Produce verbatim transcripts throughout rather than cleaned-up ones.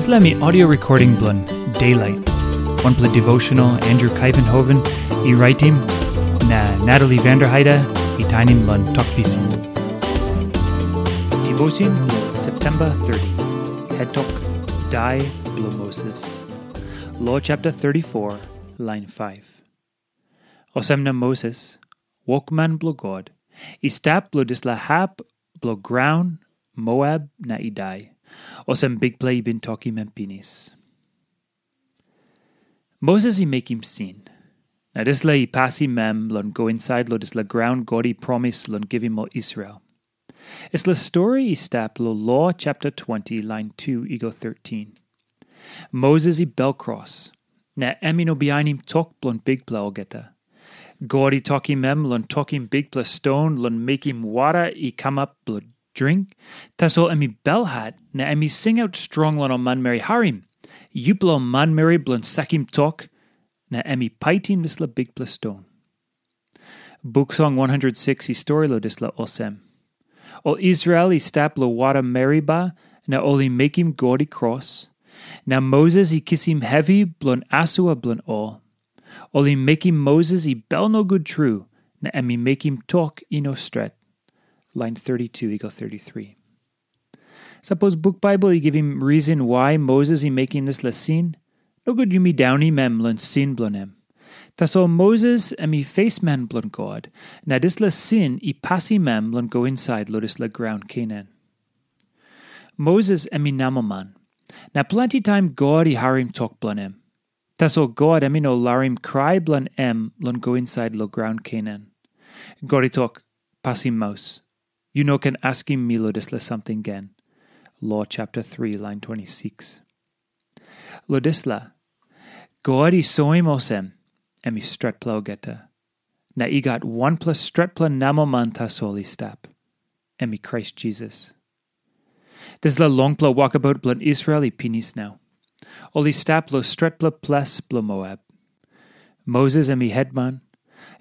Dispela mi audio recording bilong Daylight, wanpela devotional Andrew Kuyvenhoven i raitim, na Natalie Vanderheide i tainim long Tok Pisin. Devotion bilong September thirty, head tok, Dai bilong Moses. Lo chapter thirty-four, line five. Olsem na Moses, wokman bilong God, i stap long dispela hap bilong graun Moab na i dai, olsem Bikpela i bin tokim em pinis. Moses i mekim sin, na dispela i pasim em long go insait long dispela graun God i promis long givim ol Israel. Dispela stori i stap long Lo chapter twenty, lain two i go thirteen. Moses i bel kros, na em i no bihainim tok bilong Bikpela olgeta. God i tokim em long tokim bikpela ston long mekim wara i kamap bilong dring, tasol em i belhat na em i singaut strong long ol manmeri, "Harim, yupela ol manmeri bilong sakim tok," na em i paitim dispela bikpela ston. Buk Song one hundred six i stori long dispela olsem, ol Israel i stap long wara Meriba, na ol i mekim God i kros. Na Moses i kisim hevi bilong asua bilong ol. Ol i mekim Moses i bel nogut tru, na em i mekim tok i no stret. Lain thirty-two i go thirty-three. Sapos buk Baibel i givim risin wai Moses i mekim dispela sin, nogut yumi daunim em long sin bilong em. Tasol Moses em i fesman bilong God, na dispela sin i pasim em long go insait long dispela graun Kenan. Moses em i namelman, na planti taim God i harim tok bilong em. Tasol God em i no larim krai bilong em long go insait long graun Kenan. God i tok, "Pasim maus. Yu no ken askim mi long dispela samting gen." Lo chapter three, lain twenty-six. Lo dispela, God i soim olsem, em i stretpela olgeta. Na i gat wanpela stretpela namelman tasol i stap. Em i Krais Jisas. Dispela longpela wokabaut bilong Israel i pinis nau. Ol i stap long stretpela ples bilong Moab. Moses em i hetman,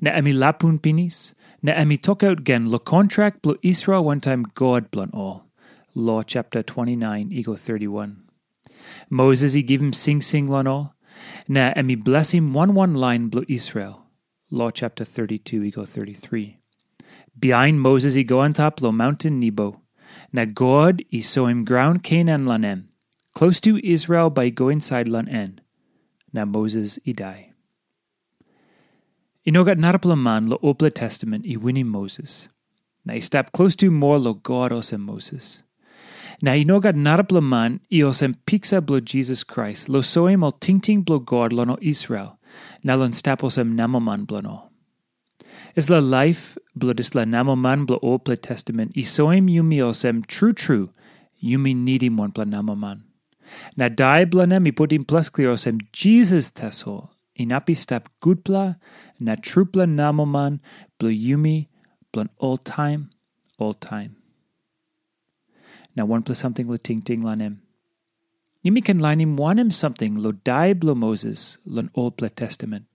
na em i lapun pinis, na em i tokaut gen long kontrak bilong Israel wantaim God bilong ol. Lo chapter twenty-nine i go thirty-one. Moses i givim singsing long ol, na em i blesim wan wan lain bilong Israel. Lo chapter thirty-two i go thirty-three. Bihain Moses i go antap long maunten Nebo, na God i soim graun Kenan long em, klostu Israel bai i go insait long en. Na Moses i dai. I no gat narapela man long Olpela Testament i winim Moses, na i stap klostu moa long God olsem Moses. Na i no gat narapela man i olsem piksa bilong Jisas Krais long soim ol tingting bilong God long ol Israel, na long stap olsem namelman bilong ol. Dispela laip bilong dispela namelman bilong Olpela Testament i soim yumi olsem tru tru yumi nidim wanpela namelman. Na dai bilong em i putim ples klia olsem Jisas tasol inap i stap gutpela na trupela namelman bilong yumi bilong oltaim, oltaim. Na wanpela samting long tingting long em. Yumi ken lainim wanem samting long dai bilong Moses long Olpela Testament.